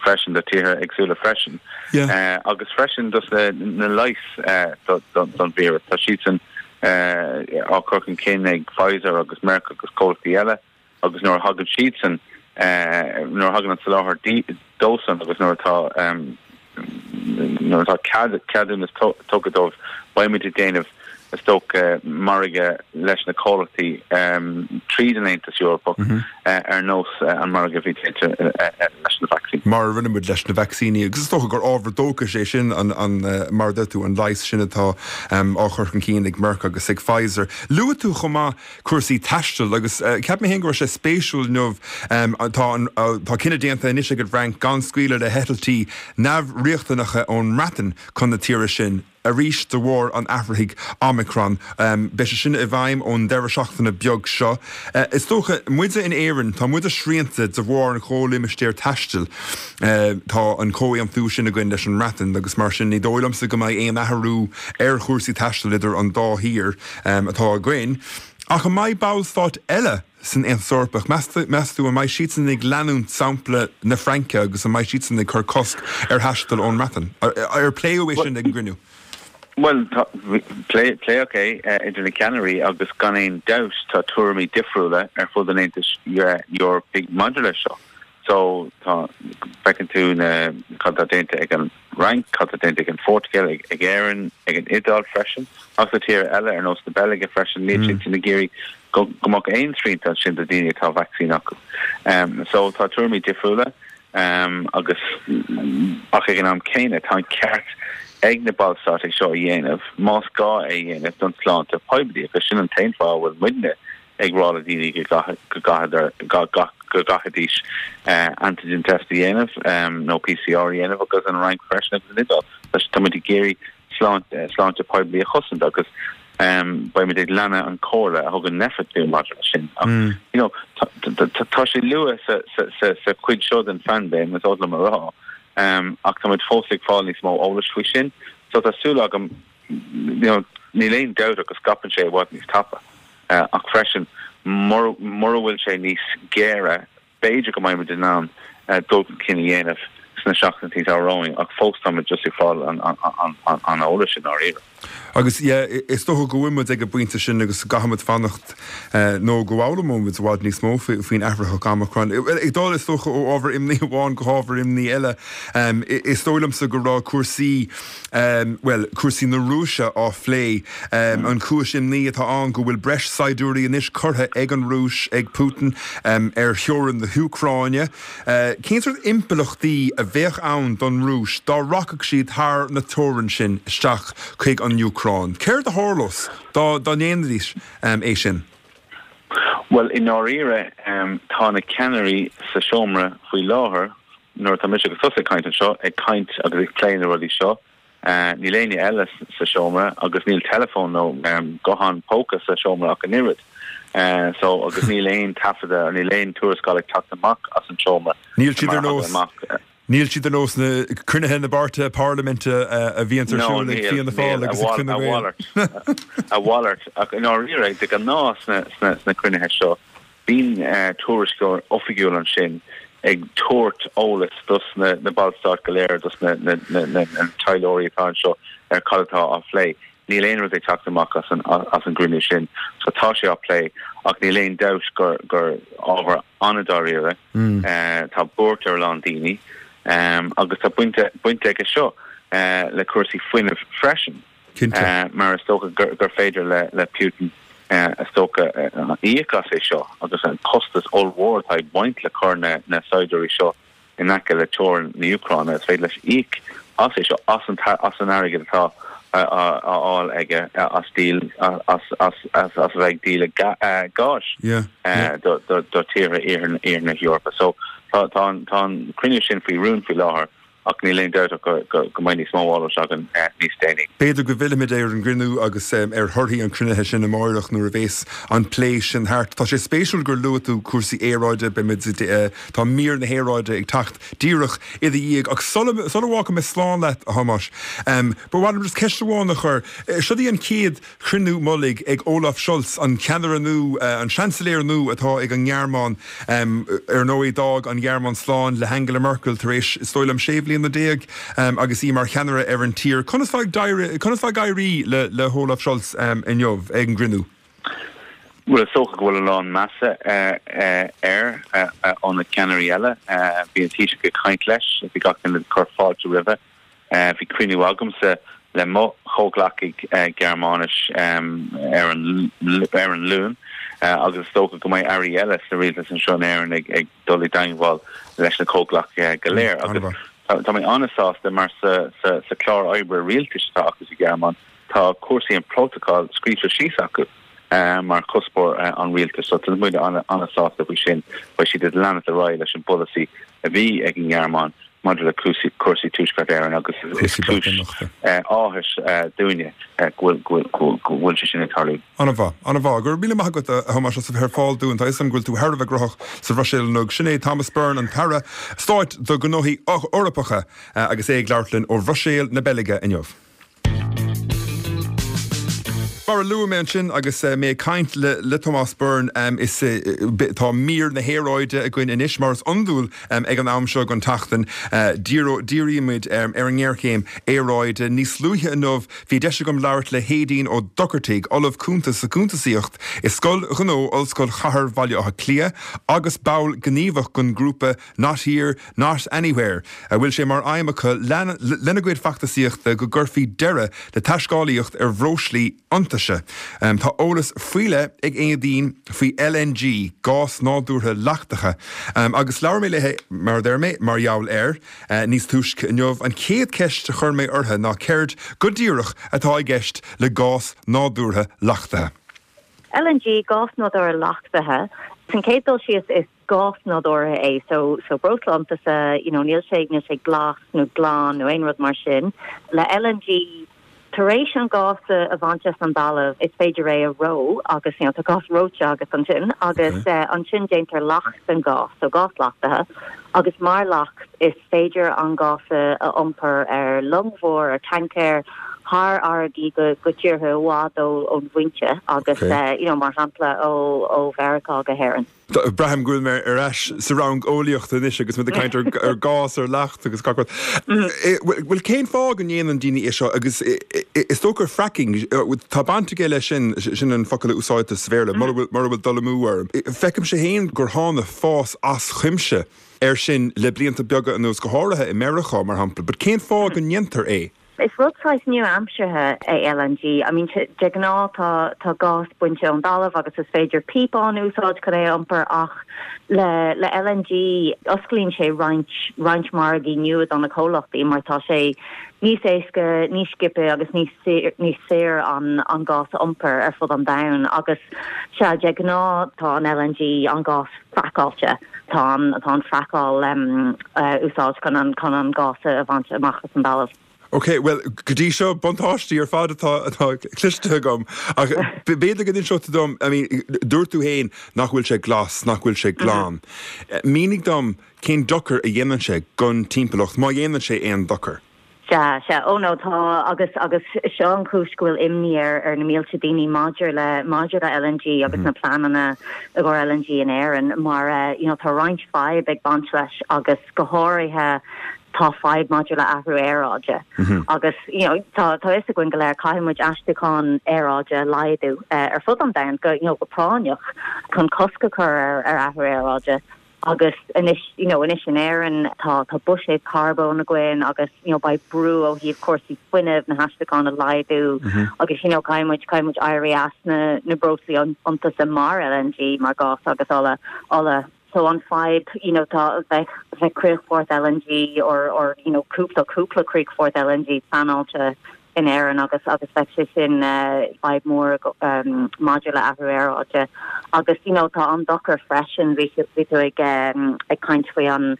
freisin do tíortha éagsúla freisin. Agus freisin dos na leighis don víreas. Tá siadsan á cur chun cinn ag Pfizer agus Merck agus comhlachtaí eile agus nuair a thagann siadsan, nuair a thagann an soláthar dósan agus nuair atá Nuair atá cead, ceadúnas tugtha dóibh, beidh muid ag déanamh, is dócha, margadh leis na comhlachtaí tríd an Aontas Eorpach ar nós an margadh a bhí déanta leis na vacsaíní. Mar a rinne muid leis na vacsaíní. Agus is dócha gur ábhar dóchais é sin, an, mar a deir tú, an leigheas sin atá á chur chun cinn ag Merck agus ag Pfizer. Luaigh tú chomh maith cúrsaí taistil agus cheap mé féin go raibh sé spéisiúil inniu, tá an, tá cinneadh déanta anois ag an bhFrainc gan scaoileadh le heitiltí neamhriachtanacha ón mBreatain chun na tíre sin, arís de bharr an athraithigh Omicron. Beidh sé sin i bhfeidhm ón deireadh seachtaine beag seo. Is dócha, muide in Éirinn, tá muide srianta de bharr an chomhlimistéir taistil. Tá an comhaontú sin againn leis an mBreatain agus mar sin ní dóigh liomsa go mbeidh aon athrú ar chúrsaí taistil idir an dá thír. atá againn. Ach an mbeidh ballstáit eile san Aontas Eorpach, meas tú, an mbeidh siadsan ag leanúint sampla na Fraince agus an mbeidh siadsan ag cur cosc ar thaisteal ón mBreatain? Ar pléadh é sin ag an gcruinniú? Bhuel, pléadh é idir na ceannairí agus gan aon dabht tá tuairimí difriúla ar fud an Aontais Eorpaigh maidir leis seo. So, tá, feiceann tú na, cad atá déanta ag an Fhrainc, cad atá déanta ag an Phortaingéil, ag, ag Éirinn, ag an Iodáil freisin, agus na tíortha eile ar nós na Beilge freisin, níl siad sin ag iarraidh go, go mbeadh aon srianta ansin do daoine atá vacsaín acu. Um, so, tá tuairimí difriúla, um, agus, ach ag an am céanna, tá an ceart ag na ballstáit é seo a dhéanamh, más gá é a dhéanamh don tsláinte poiblí, agus sin an t-aon fáth a bhfuil muidne ag rá le daoine go go gcaithfidís antigen test a dhéanamh nó PCR a dhéanamh agus an Fhrainc freisin agus an Iodáil. Tá muid ag iarraidh sláinte poiblí a chosaint agus beidh muid ag leanadh an chomhairle a thugann Nphet dúinn maidir leis sin. Ach you know tá sé luath sa chuid seo den phaindéim, is oth liom a rá, ach tá muid fós ag fáil níos mó eolais faoi sin. So tá súil agam you know níl aon dabht ach go scaipeann sé i bhfad níos tapa. Ach freisin, mura bhfuil sé níos géire, b'fhéidir go mbeidh muid in ann dul chun cinn a dhéanamh sna seachtainí atá romhainn, ach fós tá muid just ag fáil an eolais i ndáiríre. Agus yeah, is dócha go bhfuil muid ag an bpointe sin agus go gcaithfidh muid fanacht nó go bhfoghlaimeoidh muid i bhfad níos mó faoin athraitheach Omicron. Ag dul, is dócha, ó ábhar imní amháin go hábhar imní eile, is dóigh liomsa go raibh cúrsaí, bhuel, cúrsaí na Rúise á phlé. An chúis imní atá ann go bhfuil breis saighdiúirí anois curtha ag an Rúis, ag Putin, ar theorainn na hÚcráine. Cén sórt impleachtaí a bheadh ann don Rúis dá rachadh siad thar na teorann sin isteach chuig an Úcráin? Céard a tharlós dá ndéanfaidís é sin? Bhuel, i ndáiríre, tá na ceannairí sa seomra faoi láthair, nuair atá mise agus tusa ag caint anseo, ag caint agus ag plé na rudaí seo. Níl éinne eile sa seomra agus níl teileafón nó guthán póca sa seomra ach an oiread. So, agus níl aon taifeadadh, níl aon tuarascáil ag teacht amach as an seomra. Níl siad ar nós, níl siad ar nós na cruinnithe na bpáirtithe parlaiminte a bhíonns ar siúl ag Fianna Fáil agus ag Fine Gael. A mhalairt, ach i ndáiríre, de ghnáth sna cruinnithe seo, Bíonn tuairisceoir oifigiúil ansin ag tabhairt eolas dos na ballstáit go léir, dos na taidhleoirí atá anseo ar cad atá á phlé. Níl aon rud ag teacht amach as an gcruinniú sin so tá sé á plé ach níl aon dabht gur gur ábhar an-dáiríre. Tá buairt ar a lán daoine agus tá baint aige seo le cúrsaí fuinnimh freisin. Cinnte. Mar is dócha gur féidir le Putin, is dócha, íoc as é seo agus an costas ollmhór atá ag baint le cur na saighdiúirí seo in aice le teorainn na hÚcráine, is féidir leis íoc as é seo, as an airgead atá á fháil aige as díol, as a bheith ag díol gáis do tíortha iarthar na hEorpa. So tá an cruinniú sin faoi rún faoi láthair. Ach níl aon dabht ach go mbeidh níos mó eolais againn níos déanaí. B'fhéidir go bhfillfimid ar an gcruinniú agus ar thorthaí an chruinnithe sin amáireach nuair a bhéas an plé sin thart. Tá sé spéisiúil gur luaigh tú cúrsaí aeráide, beimid, tá mír na haeráide ag teacht díreach i do dhiaidh. Ach sula bhfágfaidh mé slán leat, a Thomáis, ba mhaith liom just ceist amháin a chur. Seo í an chéad chruinniú mullaigh ag Olaf Scholz, an ceannaire nua, an seansailéir nua atá ag an nGearmáin. Ar ndóigh, d'fhág an Ghearmáin slán le hAngela Merkel tar éis, is dóigh liom, 16 bhliana agus í mar cheannaire ar an tír. Conas atá ag éirí le hOlaf Scholz inniu ag an gcruinniú? Bhuel, is dócha go bhfuil a lán measa air ó na ceannairí eile. Bhí an Taoiseach ag caint leis, bhí gach duine ag cur fáilte roimhe. Bhí cruinniú agamsa le mo chomhghleacaigh Gearmáinis ar an ar an Luan agus is dócha go mbeidh airí eile sa rialtas anseo in Éirinn ag dul i dteangmháil leis na comhghleacaithe go léir. Agus tá mé an-sásta mar sa sa chlár oibre rialtais atá acu sa Ghearmáin tá cúrsaí an prótacal scríofa síos acu mar chuspóir an rialtais. So tá muid an-sásta faoi sin. Beidh siad ag leanacht ar aghaidh leis an bpolasaí a bhí ag an nGearmáin maidir le cúrsaí Tuaisceart Éireann agus is cúis áthais dúinne go bhfuil sé sin ag tarlú. An-mhaith, an-mhaith. Go raibh míle maith agat, a Thomáis, as a bheith ar fáil dúinn. Tá a fhios agam go bhfuil tú thar a bheith gnóthach sa Bhruiséil inniu. Sin é Thomas Byrne, an tAire Stáit do Ghnóthaí Eorpacha, agus é ag labhairt linn ó Bhruiséil na Beilge inniu. Mar a luaigh mé ansin agus mé ag caint le Tomás Byrne, is tá mír na haeráide againn anois, mar is iondúil ag an am seo den tseachtain. Dírímid ar an ngéarchéim aeráide. Níos luaithe inniu bhí deis agam labhairt le hAedín Ó Dochartaigh, Ollamh Cúnta sa Chuntasaíocht i Scoil Ghnó Ollscoil Chathair Bhaile Átha Cliath agus ball gníomhach den ghrúpa Not Here, Not Anywhere, a bhfuil sé mar aidhm acu lena gcuid feachtasaíochta go gcuirfí deireadh le taiscéalaíocht ar bhreoslaí iontaise. Tá eolas faoi leith ag Éadaoin faoi LNG, gás nádúrtha leachtaithe, agus labhair mé léi, mar a deir mé, mar gheall air níos túisce inniu. An chéad cheist a chuir mé uirthi ná céard go díreach atá i gceist le gás nádúrtha leachtaithe? LNG, gás nádúrtha leachtaithe. San chéad dul síos is gás nádúrtha é so so breosla iontaise you know níl sé níl sé glas nó glan nó aon rud mar sin. Le LNG tar éis an gás a bhaint as an dtalamh is féidir é a reo agus you know tá gás reoite agat ansin agus eh, ansin déantar leacht den gás so gás leachtaithe agus mar leacht is féidir an gás a a iompar ar long mhór ar tancaer thar fharraigí go go tíortha i bhfad ó ón bhfoinse agus eh, you know mar shampla ó ó Mheiriceá go hÉirinn. Braithim go bhfuil mé ar ais sa rang eolaíochta anois agus muid ag caint ar gás, ar leacht agus gach rud. Bhuel, cén fáth go ndéanann daoine é seo agus is dócha fracking, tá baint aige leis sin, sin an focal a úsáidtear sa Bhéarla, mura bhfuil dul amú orm. Feicimse féin gur tháinig fás as cuimse air sin le blianta beaga anuas, go háirithe i Meiriceá, mar shampla. But cén fáth go ndéantar é? Is rud saghas nua-aimseartha é LNG. I mean, de ghnáth tá tá gás bainte ón dtalamh agus is féidir píopán a úsáid chun é a iompar ach le le LNG osclaíonn sé roinnt roinnt margaí nua do na comhlachtaí mar tá sé níos éasca, níos sciobtha agus níos níos saoire an an gás a iompar ar fud an domhain agus sea, de ghnáth tá an LNG, an gás fraiceáilte, tá an tá an fraiceáil a úsáid chun an chun an gás a bhaint amach as an dtalamh. Ok, bhuel, go dtí seo, buntáistí ar fad atá atá cloiste agam. Ach b'fhéidir go n-inseodh tú dom, I mean, dúirt tú féin nach bhfuil sé glas, nach bhfuil sé glan. Mínigh dom cén dochar a dhéanann sé don timpeallacht, má dhéanann sé aon dochar. Sea, sea. Ó no, tá, agus, agus seo an chúis go bhfuil imní ar, ar na mílte daoine maidir le, maidir le LNG agus na pleananna i gcomhair LNG in Éirinn mar eh, you know, tá roinnt fadhb ag baint leis agus go háirithe tá fadhb maidir le athrú aeráide. Agus, you know, tá, tá fhios againn go léir caithfidh muid aistriúchán aeráide a laghdú eh, ar fud an domhain go, you know, go práinneach chun cosc a chur ar, ar athrú aeráide. Agus anois, you know, anois in Éirinn tá, tá buiséad carbóin againn agus, you know, beidh brú ó thaobh cúrsaí fuinnimh, na haistriúcháin a laghdú agus, you know, caithfidh muid, caithfidh muid éirí as na, na breoslaí iontaise mar LNG, mar gás agus ola, ola. So an fadhb, you know, tá, bheadh, bheadh críochfort LNG or, or, you know, cúpla, cúpla críochfort LNG pleanáilte in Éirinn agus agus bheadh sé sin fadhb mór maidir le athrú aeráide. Agus you know tá an dochar freisin, bhí bhí tú ag ag caint faoi an.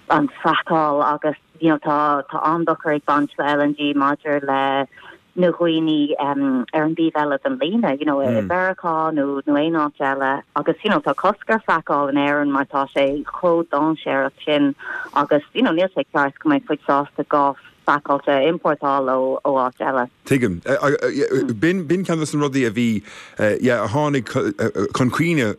an fraiceáil agus you know tá tá an-dochar ag baint le LNG maidir le na dhaoine ar an dtaobh eile den líne, you know, i Meiriceá nó nó aon áit eile agus you know tá cosc ar fraiceáil in Éirinn mar tá sé chomh dainséarach sin agus you know níl sé ceart go mbeidh muid sásta gás fraiceáilte a iompórtáil ó ó áit eile. Tuigim. B'in b'in ceann de na rudaí a bhí yeah a tháinig chun cuimhne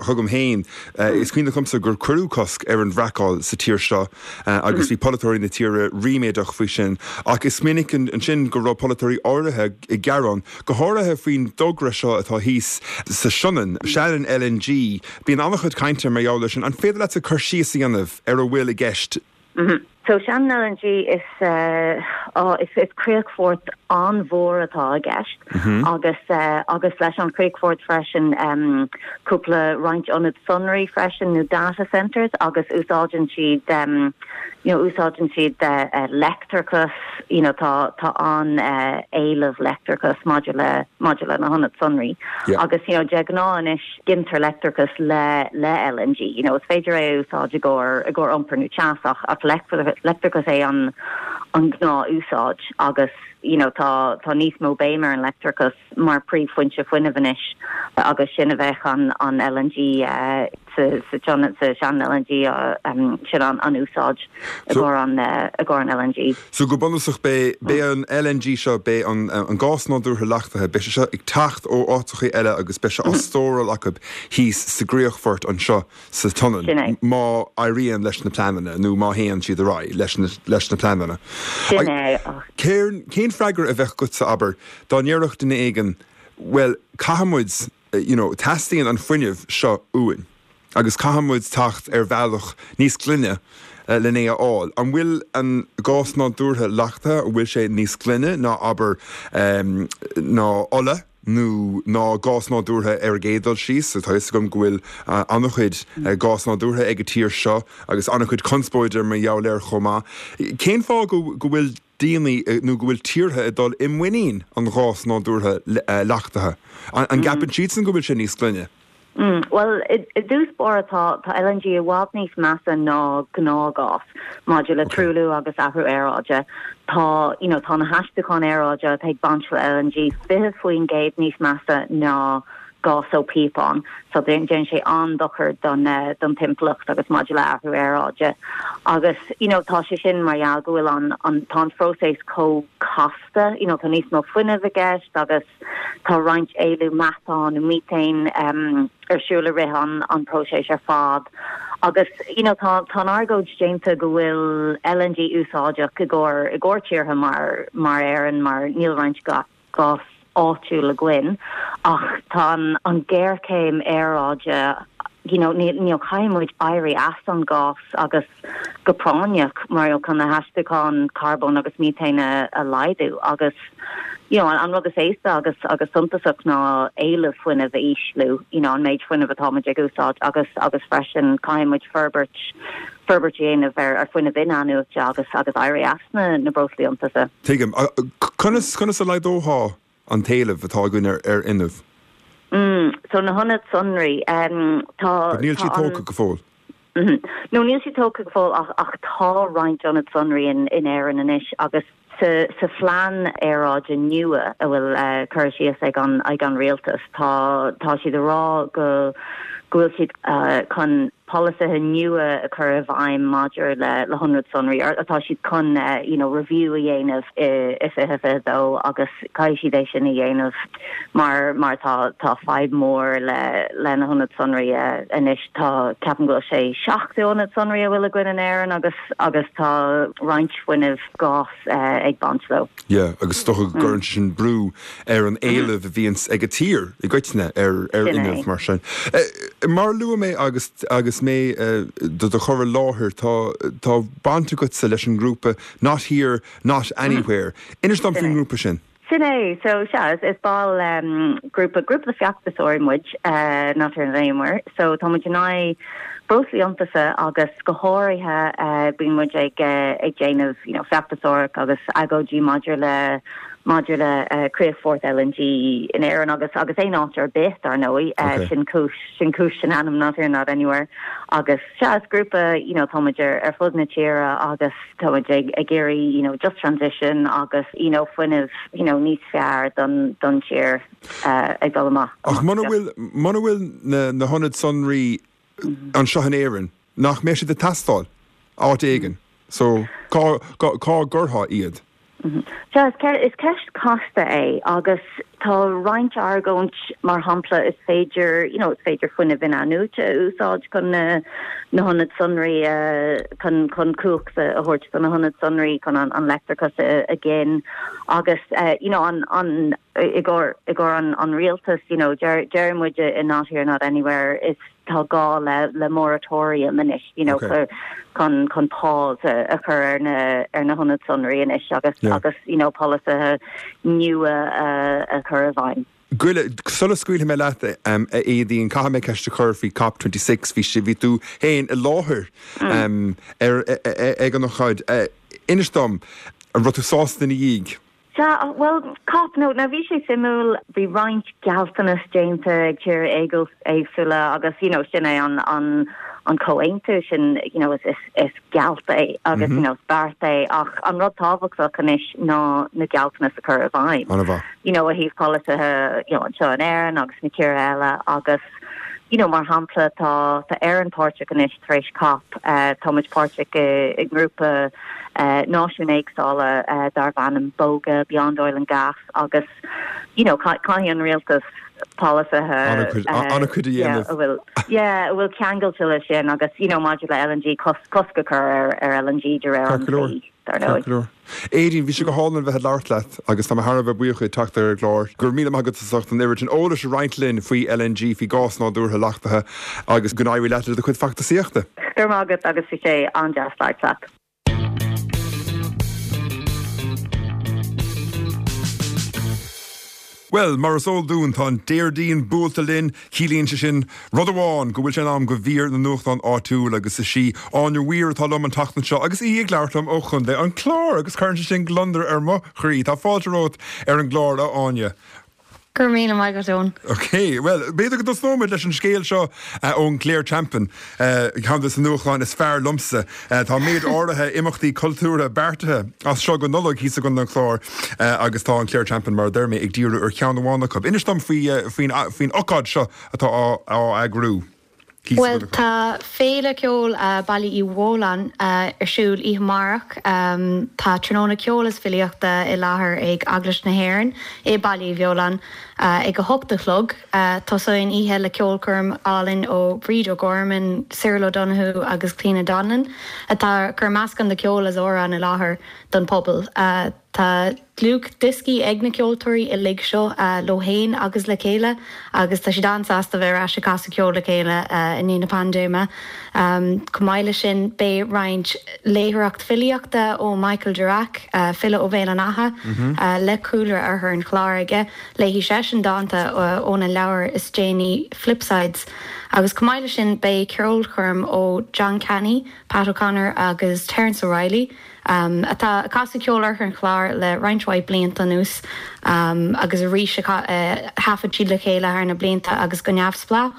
chugam féin. Is cuimhin liomsa gur cuireadh cosc ar an bhfraiceáil sa tír seo agus bhí polaiteoirí na tíre ríméadach faoi sin. Ach is minic ansin go raibh polaiteoirí áirithe ag gearán, go háirithe faoin dtogra seo atá thíos sa Sionainn, Shannon LNG. Bíonn an-chuid cainte mar gheall air sin. An féidir leatsa cur síos a dhéanamh ar a bhfuil i gceist? So Shannon LNG is is is críochfort an-mhór atá i gceist agus agus leis an chríochfort freisin cúpla roinnt ionad sonraí freisin nó data centres agus úsáideann siad you know úsáideann siad leictreachas you know tá tá an-éileamh leictreachas maidir le maidir le na hionaid sonraí agus you know de ghnáth anois Gintear leictreachas le le LNG. You know, is féidir é a úsáid i gcomhair i gcomhair iompar nó teas ach ach leictreachas é an an gnáth-úsáid agus you know tá tá níos mó béim ar an leictreachas mar príomhfhoinse fuinnimh anois agus sin a bheadh an an LNG sa sa sa Shannon LNG sin an an úsáid i gcomhair an i gcomhair an LNG. So go bunúsach beidh beidh an LNG seo, beidh an an gás nádúrtha leachtaithe, beidh sé seo ag teacht ó áiteachaí eile agus beidh sé á stóráil acu thíos sa gcríochfort anseo sa tSionainn má éiríonn leis na pleananna nó má théann siad ar aghaidh leis na leis na pleananna. Sin é ach. Cén cén freagra a bheadh agatsa abair dá ndéarfadh duine éigin bhuel caithfidh muid you know teastaíonn an fuinneamh seo uainn agus caithfidh muid teacht ar bhealach níos glaine len é a fháil. An bhfuil an gás nádúrtha leachtaithe, an bhfuil sé níos glaine ná abair ná ola nó ná gás nádúrtha ar an gcéad dul síos? Tá a fhios agam go bhfuil an-chuid gás nádúrtha ag an tír seo agus an-chuid conspóide mar gheall air chomh maith. Cén fáth go bhfuil daoine nó go bhfuil tíortha ag dul i muinín an ghás nádúrtha leachtaithe? An gceapann siadsan go bhfuil sé níos glaine? Bhuel, i dtús báire tá tá LNG i bhfad níos measa ná gnáthghás maidir le truailliú agus athrú aeráide. Tá, you know, tá na haistiúcháin aeráide atá ag baint le LNG 20% níos measa ná gás ó phíopán. So déanann sé an-dochar don don timpeallacht agus maidir le athrú aeráide. Agus, you know, tá sé sin mar gheall go bhfuil an an tá an phróiseas chomh casta, you know, tá níos mó fuinnimh i gceist agus Tá roinnt éilliú meatáin nó methane ar siúl i rith an an próiseas ar fad agus you know tá tá an argóint déanta go bhfuil LNG úsáideach i gcomhair i gcomhair tíortha mar mar Éirinn mar níl roinnt gás áitiúil againn ach tá an an géarchéim aeráide you know ní ní caithfidh muid éirí as an gás agus go práinneach mar chun na haistiúcháin carbóin agus methane a laghdú agus you know an rud is éasca agus agus suntasach ná éileamh fuinnimh a ísliú, you know an méid fuinnimh atá muid ag úsáid agus agus freisin caithfidh muid forbairt forbairt a dhéanamh ar ar fuinneamh in-athnuaite agus agus éirí as na na breoslaí iontaise. Tuigim. Conas conas a laghdófá an t-éileamh atá againn ar ar fhuinneamh? Mm, so na hionaid sonraí, tá But níl siad tógtha go fóill. No, níl siad tógtha go fóill ach ach tá roinnt ionad sonraí in in Éirinn anois agus sa sa phlean aeráide nua a bhfuil curtha síos ag an ag an rialtas tá tá siad ag rá go go bhfuil siad chun polasaithe nua a chur i bhfeidhm maidir le le hionaid sonraí or tá siad chun you know review a dhéanamh i i 2022 agus caithfidh siad é sin a dhéanamh mar mar tá tá fadhb mhór le le na hionaid sonraí anois. Tá, ceapaim go bhfuil sé 70 ionad sonraí a bhfuil againn in Éirinn agus agus tá roinnt fuinnimh gás ag baint leo. Yeah, agus is dócha go gcuireann sé sin brú ar an éileamh a bhíonns ag an tír i gcoitinne ar ar fhuinneamh mar sin. Mar a luaigh mé agus agus mé do do chur i láthair, tá tá baint agatsa leis an ngrúpa Not Here, Not Anywhere. Inis dom faoin ngrúpa sin. Sin é. So, sea, is ball grúpa, grúpa de feachtasóirí muid, Not Here Not Anywhere. So, tá muid in aghaidh breoslaí iontaise agus go háirithe bíonn muid ag ag déanamh, you know, feachtasóireacht agus agóidí maidir le. maidir le críochfort LNG in Éirinn agus agus aon áit ar bith, dar ndóigh. Sin cúis, sin cúis an ainm Not Here Not Anywhere. Agus sea, is grúpa, you know, táimid ar ar fud na tíre agus táimid ag ag iarraidh, you know, just transition agus, you know, fuinneamh, you know, níos fearr don don tír ag dul amach. Ach muna bhfuil, muna bhfuil na na hionaid sonraí anseo in Éirinn, nach mbeidh siad ag teastáil áit éigin? So, cá, cá, cá gcuirfeá iad? Sea, is ceist casta é agus tá roinnt argóint, mar shampla, is féidir, you know, is féidir fuinneamh in-athnuaite a úsáid chun na na hionaid sonraí a, chun, chun cumhacht a thabhairt do na hionaid sonraí chun an, an leictreachas a, a ghin agus, you know, an, an, i gcomhair, i gcomhair an, an rialtas, you know, deir, deir muid i Not Here Not Anywhere, is, tá gá le le moratorium anois you know chun chun pause a chur ar na ar na hionaid sonraí anois agus agus you know polasaithe nua a chur i bhfeidhm. Goile, sula scaoilfidh mé leat, a Éadaoin, caithfidh mé ceist a chur faoi COP 26. Bhí sé, bhí tú féin i láthair ar ag an ócáid. Inis dom, an raibh tú sásta ina dhiaidh? Sea, bhuel, COP, no, now bhí sé suimiúil, bhí roinnt gealltanas déanta ag tíortha éagsúla agus, you know, sin é an, an, an comhaontú sin, you know, is, is, is gealt é agus, you know, is beart é ach an rud tábhachtach anois ná na gealltanas a chur i bhfeidhm. An-mhaith. You know, ó thaobh polasaithe, you know, anseo in Éirinn agus na tíortha eile agus, you know, mar shampla, tá, tá Éirinn páirteach anois tar éis COP, tá muid páirteach i, i ngrúpa, náisiúin éagsúla darb ainm BOGA, Beyond Oil and Gas, agus you know caithfidh an rialtas polasaithe an-chuid a dhéanamh. a bhfuil yeah a bhfuil ceangailte leis sin agus you know maidir le LNG cosc a chur ar ar LNG de réir an dlí, dar ndóigh. Ceart go leor. Éadaoin, bhí sé go hálainn bheith ag labhairt leat agus tá mé thar a bheith buíoch díot teacht ar an gclár. Go raibh míle maith agat as ucht an oiread sin eolais a roinnt linn faoi LNG, faoi ghás nádúrtha leachtaithe agus go n-éirí leat le do chuid feachtasaíochta. Go raibh maith agat agus bhí sé an-deas labhairt leat. Bhuel, mar is eol dúinn, tá an Déardaoin buailte linn. Ciallaíonn sé sin rud amháin, go bhfuil sé in am do mhír na nuachtán áitiúil agus is í Áine Weir atá liom an tseachtain seo agus í ag labhairt liom ó Chontae an Chláir agus cuireann sé sin gliondar ar mo chroí. Tá fáilte romhat ar an gclár, a Áine. Go raibh míle maith agat, Eoin. Ok, bhuel, b'fhéidir go dtosnóimid leis an scéal seo ón Clare Champion, ceann de na nuachtáin is fearr liomsa. Tá méid áirithe imeachtaí cultúrtha beartaithe as seo go Nollaig thíos i gContae an Chláir agus tá an Clare Champion, mar a deir mé, ag díriú ar cheann amháin acu. Inis dom faoin ócáid seo atá á eagrú. Bhuel, tá Féile Ceoil Baile Uí Bheoláin ar siúl oíche amárach. Tá tráthnóna ceoil is filíochta i láthair ag Eaglais na hÉireann i Baile Uí Bheoláin ag 8 a chlog. Tosóidh an oíche le ceolchoirm álainn ó Bríd O'Gorman, Cyril O'Donoghue agus Clíona Donnellan atá ag cur meascán de cheol is amhráin i láthair don phobal. Tá dlúthdhioscaí ag na ceoltóirí uilig seo leo féin agus le chéile agus tá siad an-sásta bheith ar ais ag casadh ceoil le chéile i ndiaidh na paindéime. Chomh maith leis sin beidh roinnt léitheoireacht filíochta ó Michael Durack, file ó Bhéal an Átha le cúlra Oirthear an Chláir aige. Léifidh seisean dánta óna leabhar is déanaí Flipsides. Agus chomh maith leis sin beidh ceolchoirm ó John Canny, Pat O'Connor agus Terence O'Reilly. atá ag casadh ceol Oirthear an Chláir le roinnt mhaith blianta anuas agus arís thaifead siad le chéile thar na blianta agus go neamhspleách.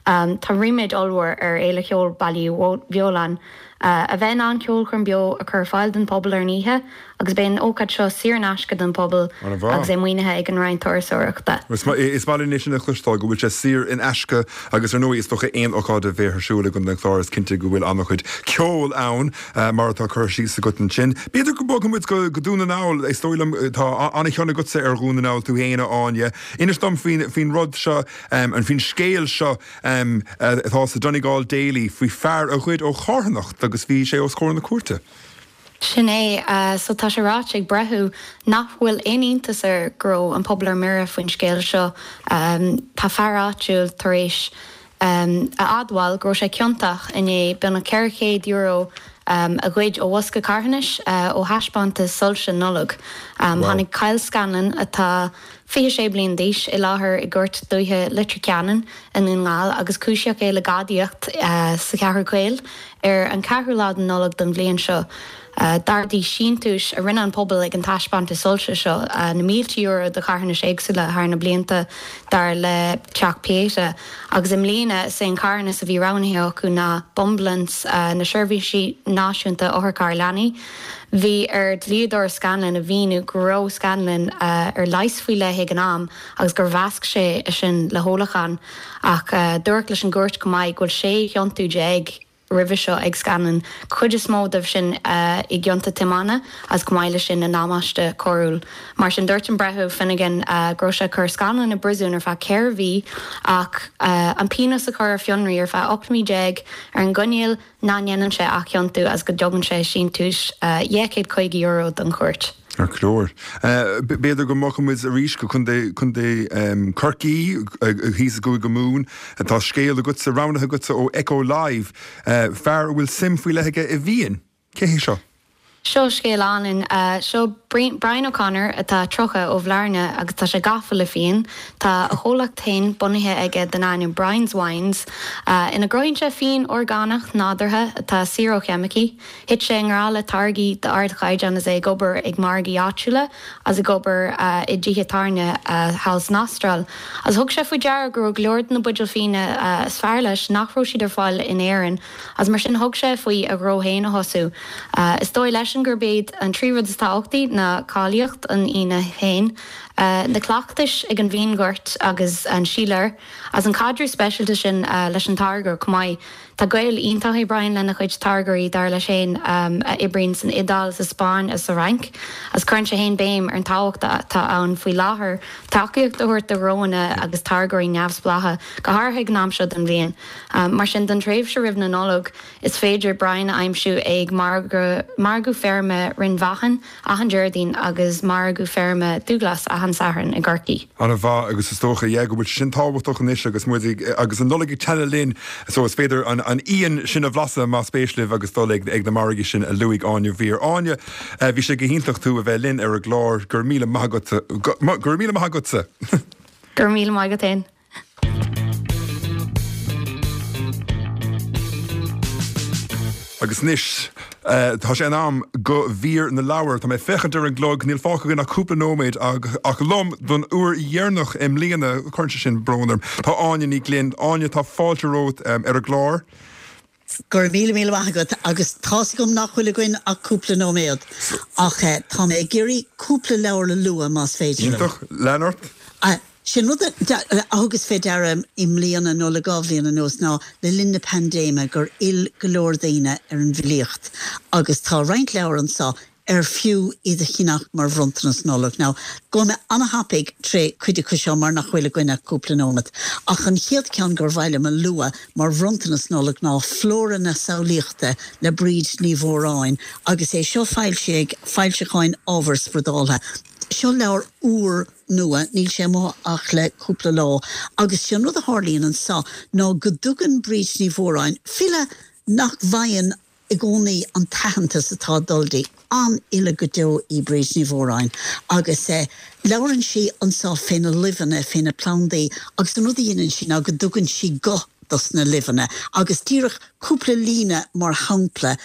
Tá ríméad ollmhór ar Fhéile Cheoil Baile Uí Bheoláin a bheith in ann ceolchoirm beo a chur ar fáil don phobal ar an oíche agus beidh an ócáid seo saor in aisce don phobal agus é maoinithe ag an Roinn Turasóireachta. Is maith linn é sin a chloisteáil, go bhfuil sé saor in aisce agus ar ndóigh is dócha aon ócáid a bheidh ar siúl i gContae an Chláir is cinnte go bhfuil an-chuid ceoil ann. Mar atá curtha síos agat ansin. B'fhéidir go mbogfaidh muid go Dún na nGall. Is dóigh liom, tá an-chion agatsa ar Dhún na nGall tú féin, a Áine. Inis dom faoin rud seo, faoin scéal seo atá sa Donegal Daily faoi fear a ghoid ó charthanacht agus bhí sé os comhair na cúirte. Sin é. So tá sé ráite ag breitheamh nach bhfuil aon iontas air go raibh an pobal ar mire faoin scéal seo. Tá fear áitiúil tar éis a admháil go raibh sé ciontach i ndiaidh beagnach €400 a ghoid ó bhosca carthanais ó thaispeántas soilse Nollag. Tháinig Kyle Scanlon, atá 26 bliain d'aois, i láthair i gCúirt Dúiche Leitir Ceanainn i nDún na nGall agus cúisíodh é le gadaíocht sa Cheathrú Caol ar an 4ú lá de Nollaig den bhliain seo. D'ardaigh síntiúis a rinne an pobal ag an taispeántas soilse seo na mílte euro do charthanais éagsúla thar na blianta, dar le Teach Pieta, agus i mbliana is é an carthanas a bhí roghnaithe acu ná Bumbulance, na seirbhísí náisiúnta otharchairr leanaí. Bhí ar dhlíodóir Scanlon a mhíniú go raibh Scanlon ar leigheas faoi leith ag an am agus gur mheasc sé é sin le hólachán. Ach dúradh leis an gcúirt chomh maith go bhfuil 16 chiontú roimhe seo ag Scanlon, cuid is mó dóibh sin i gcionta tiomána agus chomh maith leis sin i ndamáiste coiriúil. Mar sin dúirt an Breitheamh Finnegan go raibh sé ag cur Scanlon i bpríosún ar feadh 4 mhí ach an pionós a chur ar fionraí ar feadh 18 mí ar an gcoinníoll nach ndéanann sé athchiontú agus go dtugann sé síntiús €250 don chúirt. Ceart go leor. B'fhéidir go mbogfaidh muid arís go Contae, Contae Chorcaí, thíos i gCúige Mumhan. Tá scéal agatsa, roghnaithe agatsa ó Echo Live, fear a bhfuil suim faoi leith aige i bhfíon. Cé hé seo? Seo scéal álainn. Seo Brian O'Connor atá 30 ó Bhlarna agus tá sé gafa le fíon. Tá a chomhlacht féin bunaithe aige den ainm Brian's Wines ina gcruthaíonn sé fíon orgánach nádúrtha atá saor ó cheimicí. Thit sé i ngrá le táirgí d'ardchaighdeán is é ag obair ag margaí áitiúla agus ag obair i dtithe tábhairne thall san Astráil. Agus thug sé faoi deara go raibh go leor de na buidéil fíona is fearr leis nach raibh siad ar fáil in Éirinn agus mar sin thug sé faoi a ghnó féin a thosú. Is dóigh leisean gurb iad an trí rud is tábhachtaí ná cáilíocht an fhíona féin, na cleachtais ag an bhfíonghort agus an síléir agus an caidreamh speisialta sin leis an táirgeoir chomh maith. Tá gaol iontach ag Brian lena chuid táirgeoirí, dar leis féin, a oibríonn san Iodáil, sa Spáinn agus sa Fhrainc, agus cuireann sé féin béim ar an tábhacht atá ann faoi láthair tacaíocht a thabhairt do ghnóanna agus táirgeoirí neamhspleácha, go háirithe ag an am seo den bhliain. Mar sin, don tréimhse roimh na Nollag, is féidir Brian a aimsiú ag Margadh Feirme Rinn Mhachan achan Déardaoin agus Margadh Feirme Dúghlas achan Satharn i gCorcaigh. An-mhaith agus is dócha, yeah, go bhfuil sé sin tábhachtach anois agus muid ag, agus an Nollaig ag teannadh linn so is féidir an, an fhíon sin a bhlaiseadh más spéis libh agus dul ag, ag na margaí sin a luaigh Áine Weir. Áine, bhí sé go hiontach tú a bheith linn ar an gclár. Go raibh míle maith agatsa. Go, go raibh míle maith agatsa. Go raibh míle maith agat féin. Agus anois, tá sé in am do mhír na leabhar. Tá mé ag féachaint ar an gclog, níl fágtha againn ach cúpla nóiméad ach liom don uair dheireanach i mbliana, cuireann sé sin brón orm, tá Áine Ní Ghlinn. Áine, tá fáilte romhat ar an gclár. Go raibh míle míle maith agat agus tá's agam nach bhfuil againn ach cúpla nóiméad ach tá mé ag iarraidh cúpla leabhar a lua más féidir liom. Iontach, lean ort. Sin rud a thugas fé deara i mbliana nó le dhá bhliain anuas ná le linn na paindéime gur fhill go leor daoine ar an bhfilíocht agus tá roinnt leabhar anso ar fiú iad a cheannach mar bhronntanas Nollag. Now, gabhfaidh mé ana-thapaidh tré cuid acu seo mar nach bhfuil againn ach cúpla nóimeat. Ach an chéad ceann gur mhaith liom a lua mar bhronntanas Nollag ná Flóra na Samhlaíochta le Bríd Ní Mhóráin agus é seo foilsithe ag Foilseacháin Ábhar Spradáltha. Seo leabhar úr nua, níl sé amuigh ach le cúpla lá, agus sé an rud a tharlaíonn anso ná go dtugann Bríd Ní Mhóráin, file nach bhfaigheann i gcónaí an t-aitheantas atá ag dul di. An-fhile go deo í Bríd Ní Mhóráin agus labhrann sí anso fé na luibheanna, fé na plandaí agus an rud a dhéanann sí ná go dtugann sí guth dos na luibheanna agus díreach cúpla líne mar shampla,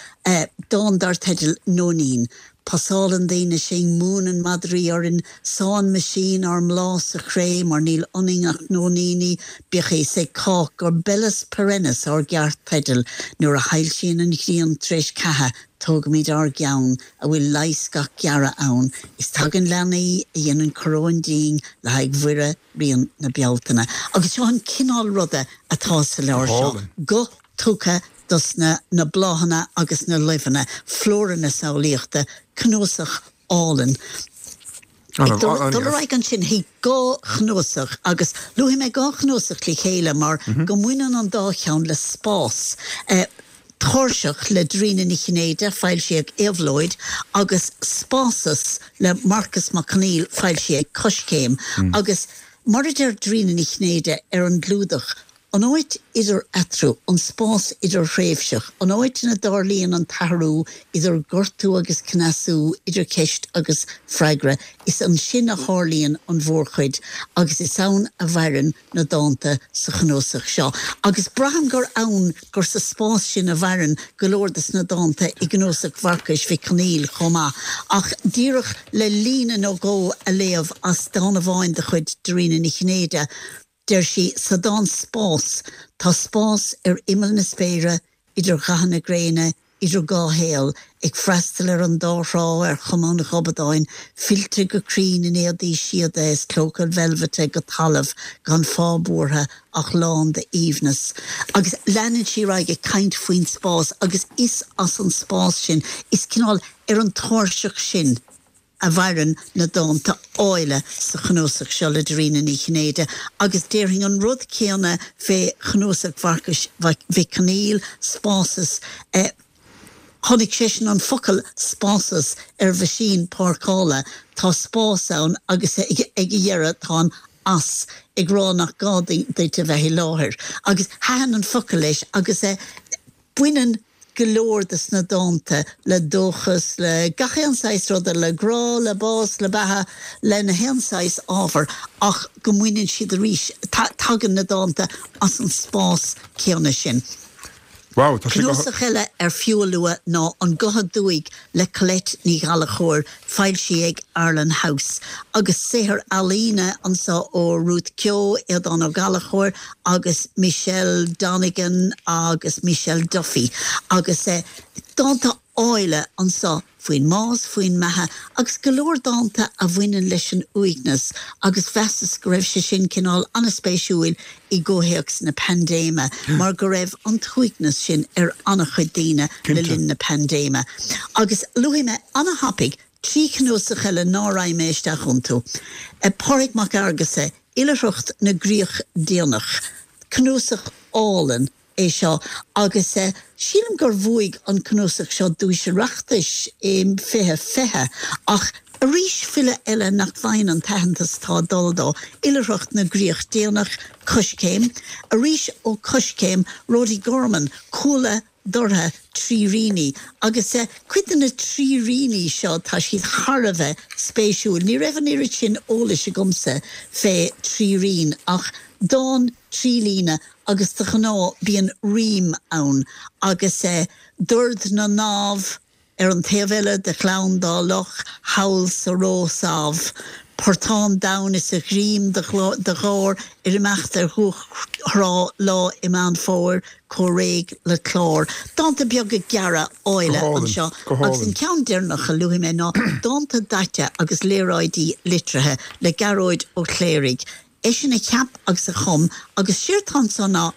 dán dar teideal 'Nóinín'. Pasálann daoine sinn, múineann madraí orainn, sánn meaisín ár mbláth sa chré mar níl ionainn ach nóiníní, bíodh a fhios ag cách gur bellis perennis ár gceart-teideal, nuair a shoilsíonn an ghrian tar éis ceatha, tógaimid ár gceann, a bhfuil leigheas gach gearradh ann, is tagann leanaí a dhéanann coróin dínn le haghaidh Mhuire Ríon na Bealtaine. Agus seo an cineál ruda atá sa leabhar seo, guth tugtha dos na na bláthanna agus na luibheanna, Flóra na Samhlaíochta, cnuasach álainn. Ag dul ar aghaidh ansin chuig dhá chnuasach, agus luafaidh mé dhá chnuasach le chéile mar go mbaineann an dá cheann le spás. Tairseach le Dairena Ní Chinnéide, foilsithe ag Éabhlóid, agus Spásas le Marcas Mac Conghail, foilsithe ag Coiscéim. Agus mar a deir Dairena Ní Chinnéide ar an gclúdach. An áit idir eatarthu, an spás idirthréimhseach, an áit ina dtarlaíonn an t-athrú idir gortú agus cneasú, idir ceist agus freagra, is ansin a tharlaíonn an mhórchuid agus is ann a mhaireann na dánta sa chnuasach seo. Agus braithim gur ann, gur sa spás sin a mhaireann go leor de na dánta i gcnuasach Mharcais Mhic Conghail chomh maith. Ach díreach le líne nó dhó a léamh as dán amháin de chuid Dairena Ní Chinnéide, Deir sí sa dán 'Spás', 'Tá spás ar imeall na spéire, idir ghathanna gréine, idir dhá shaol, ag freastal ar an dá thrá ar chuma an ghobadáin, fillte go cruinn in éadaí síoda is clóca veilbhite go talamh, gan fáth buartha ach lán d'aoibhneas. Agus leanann sí ar aghaidh ag caint faoin spás agus is as an spás sin, is cineál ar an tairseach sin, a mhaireann na dánta áille sa chnuasach seo le Dairena Ní Chinnéide agus déarfainn an rud céanna fé chnuasach Mharcais Mhic Conghail, Spásas. Chonaic seisean an focal 'spásas' ar mheaisín páirceála, tá spás ann agus ag a dheireadh tá an 'as' ag rá nach gá duit a bheith i láthair. Agus thaitin an focal leis agus baineann go leor de sna dánta le dóchas, le gach aon saghas ruda, le grá, le bás, le beatha, le na haon saghas ábhar ach go mbaineann siad arís, tagann na dánta as an spás céanna sin. Wow, tá sé go. Cnuasach eile ar fiú a lua ná An Guth Aduaidh le Colette Ní Ghallchóir, foilsithe ag Arlen House, agus saothar ealaíne anseo ó Ruth Keogh, Aodán Ó Gallchóir agus Michelle Donegan agus Michelle Duffy agus dánta áille anseo faoin mbás, faoin mbeatha agus go leor dánta a bhaineann leis an uaigneas agus mheasas go raibh sé sin cineál an-spéisiúil i gcomhthéacs na paindéime mar go raibh an t-uaigneas sin ar an-chuid daoine le linn na paindéime. Agus luafaidh mé an-thapaidh 3 chnuasach eile ná raghaidh mé isteach iontu. Pádraig Mac Fhearghusa, Oilithreacht na gCríoch Déanach, cnuasach álainn é seo agus sílim gur bhuaigh an cnuasach seo duais Oireachtais i 2020 ach arís file eile nach bhfaigheann an t-aitheantas atá ag dul dó, Oilithreacht na gCríoch Déanach, Coiscéim, arís ó Coiscéim, Rody Gorman, Cuaille Dortha, Tríríní agus cuid de na tríríní seo tá siad thar a bheith spéisiúil. Ní raibh an oiread sin eolais agamsa fé thrírín ach dán trí líne agus de ghnáth bíonn rím ann agus dord na ndamh ar an taobh eile de Ghleann Dá Loch thall sa Rósamh, portán donn is a ghreim de gháir ar imeacht ar dhumhach thrá lá i Meán Fómhair chomh réidh le clár. Dánta beaga gearra áille anseo agus an ceann deireanach a luafaidh mé ná Dánta Daite agus Léaráidí Litrithe le Gearóid Ó Cléirigh. Eisean a cheap agus a chum agus séard tá anso ná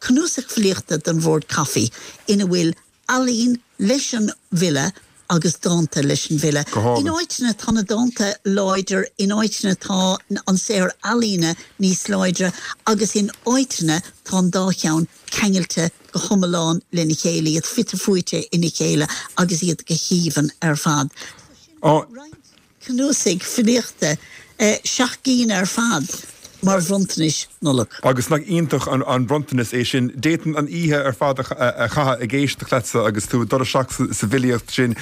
cnuasach filíochta don bhord caife ina bhfuil ealaín leis an bhfile agus dánta leis an bhfile. In áiteanna tá na dánta láidir, in áiteanna tá an saothar ealaíne níos láidre agus in áiteanna tá an dá cheann ceangailte go hiomlán lena chéile, iad fite fuaite ina chéile agus iad go haoibhinn ar fad. So sin roinnt. Cnuasaigh filíochta, 7 gcinn ar fad, mar bhronntanais Nollag. Agus nach iontach an bronntanas é sin. D'fhéadfainn an oíche ar fad a chaitheamh ag éisteacht leatsa agus tú ag dul isteach sa bhfilíocht sin.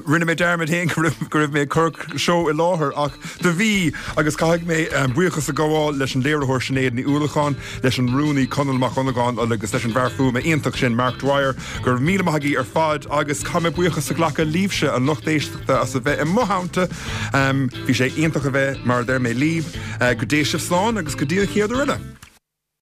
Rinne mé dearmad féin go raibh mé ag cur seó i láthair ach do bhí! Agus caithfidh mé buíochas a ghabháil leis an léiritheoir Sinéad Ní Uallacháin, leis an rúnaí Conall Mac Dhonnagáin agus leis an bhfear fuaime iontach sin Mark Dwyer. Go raibh míle maith agaibh ar fad agus caithfidh mé buíochas a ghlacadh libhse, an lucht éisteachta. as a bheith i mo theannta. Bhí sé iontach a bheith, mar a deir mé, libh. Go dté sibh slán agus go dtí an chéad uair eile.